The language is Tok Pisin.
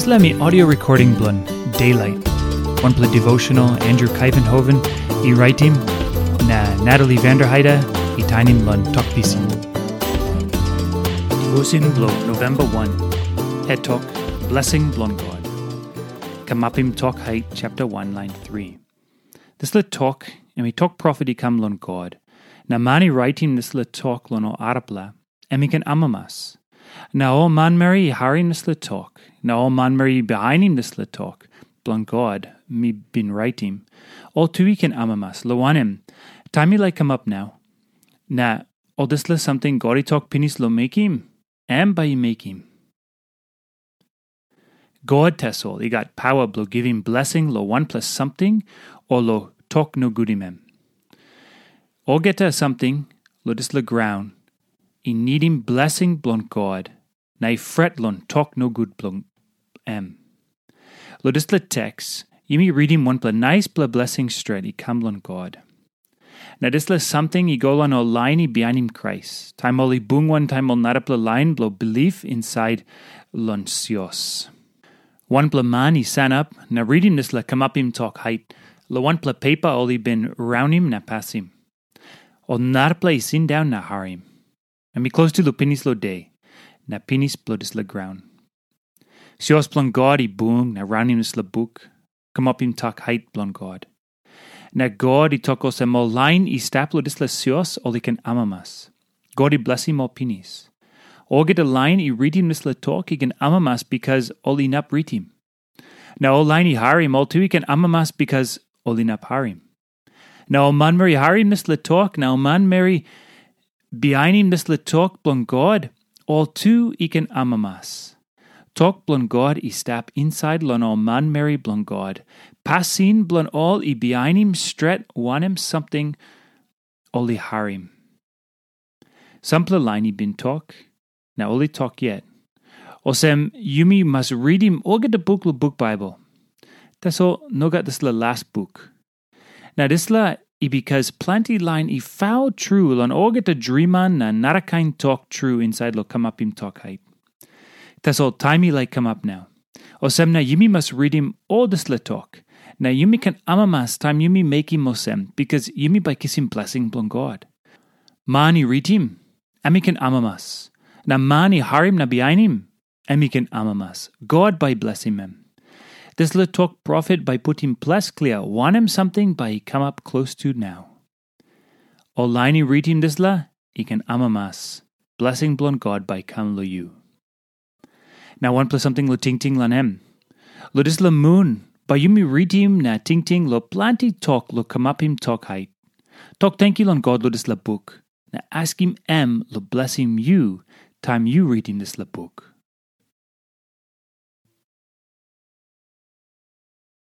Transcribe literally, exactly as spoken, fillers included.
Dispela mi audio recording bilong Daylight. Wanpela devotional Andrew Kaivenhoven i raitim, na Natalie Vanderheide i tainim long Tok Pisin. Devotion bilong November one, het tok, blessing bilong God. Kamapim Tok Hait chapter one, line three. Dispela tok, em i tok profet i kam long God. Na man i raitim dispela tok long ol arapela, em i ken amamas. Na ol manmeri i harim dispela tok, na ol manmeri i bihainim dispela tok bilong God mi bin raitim, ol tu i ken amamas, long wanem, taim i laik kamap nau, na ol dispela samting God i tok pinis long mekim, em bai i mekim. God tasol i gat pawa bilong givim blesing long wanpela samting o long tok nogutim em. Olgeta samting long dispela graun i nidim blesing bilong God, na i fret long tok nogut bilong em. Long dispela teks, yumi ritim wanpela naispela blesing stret i kam long God. Na dispela samting i go long ol lain i bihainim Krais, taim ol i bung wantaim ol narapela lain bilong bilip insait long sios. Wanpela man i sanap na ritim dispela kamapim tok hait long wanpela pepa ol i bin raunim na pasim. Ol narapela i sindaun na harim. Em i klostu long pinis long de, na pinis bilong dispela graun. Sios bilong God i bung na raunim dispela buk, kamapim tok hait bilong God. Na God i tok olsem ol lain i stap long dispela sios ol i ken amamas. God i blesim ol pinis. Olgeta lain i ritim dispela tok i ken amamas bikas ol inap ritim. Na ol lain i harim ol tu i ken amamas bikas ol inap harim. Na ol manmeri i harim dispela tok, na ol manmeri bihainim dispela tok bilong God, ol tu i ken amamas. Tok bilong God i stap insait long ol manmeri bilong God, pasin bilong ol i bihainim stret wanem samting ol i harim. Sampela lain i bin tok, na ol i tok yet. Olsem, yumi mas ritim olgeta buk long buk Baibel. Tasol nogat dispela las buk. Na dispela i bikas planti lain i faul tru long olgeta driman na narakain tok tru insait long kamapim tok hait. Tasol taim i laik kamap nau. Olsem na yumi mas ritim ol dispela tok, na yumi ken amamas taim yumi mekim olsem, bikas yumi bai kisim blesing bilong God. Man i ritim, em i ken amamas. Na man i harim na bihainim, em i ken amamas. God bai blesim em. Dispela tok profet bai putim ples klia wanem samting bai i kamap klostu nau. Ol lain i ritim dispela i ken amamas. Blesing bilong God bai kam long yu. Na wanpela samting long tingting long em. Long dispela mun, bai yumi ritim na tingting long planti tok long kamapim tok hait. Tok tenkyu long God long dispela buk, na askim em long blesim yu taim yu ritim dispela buk.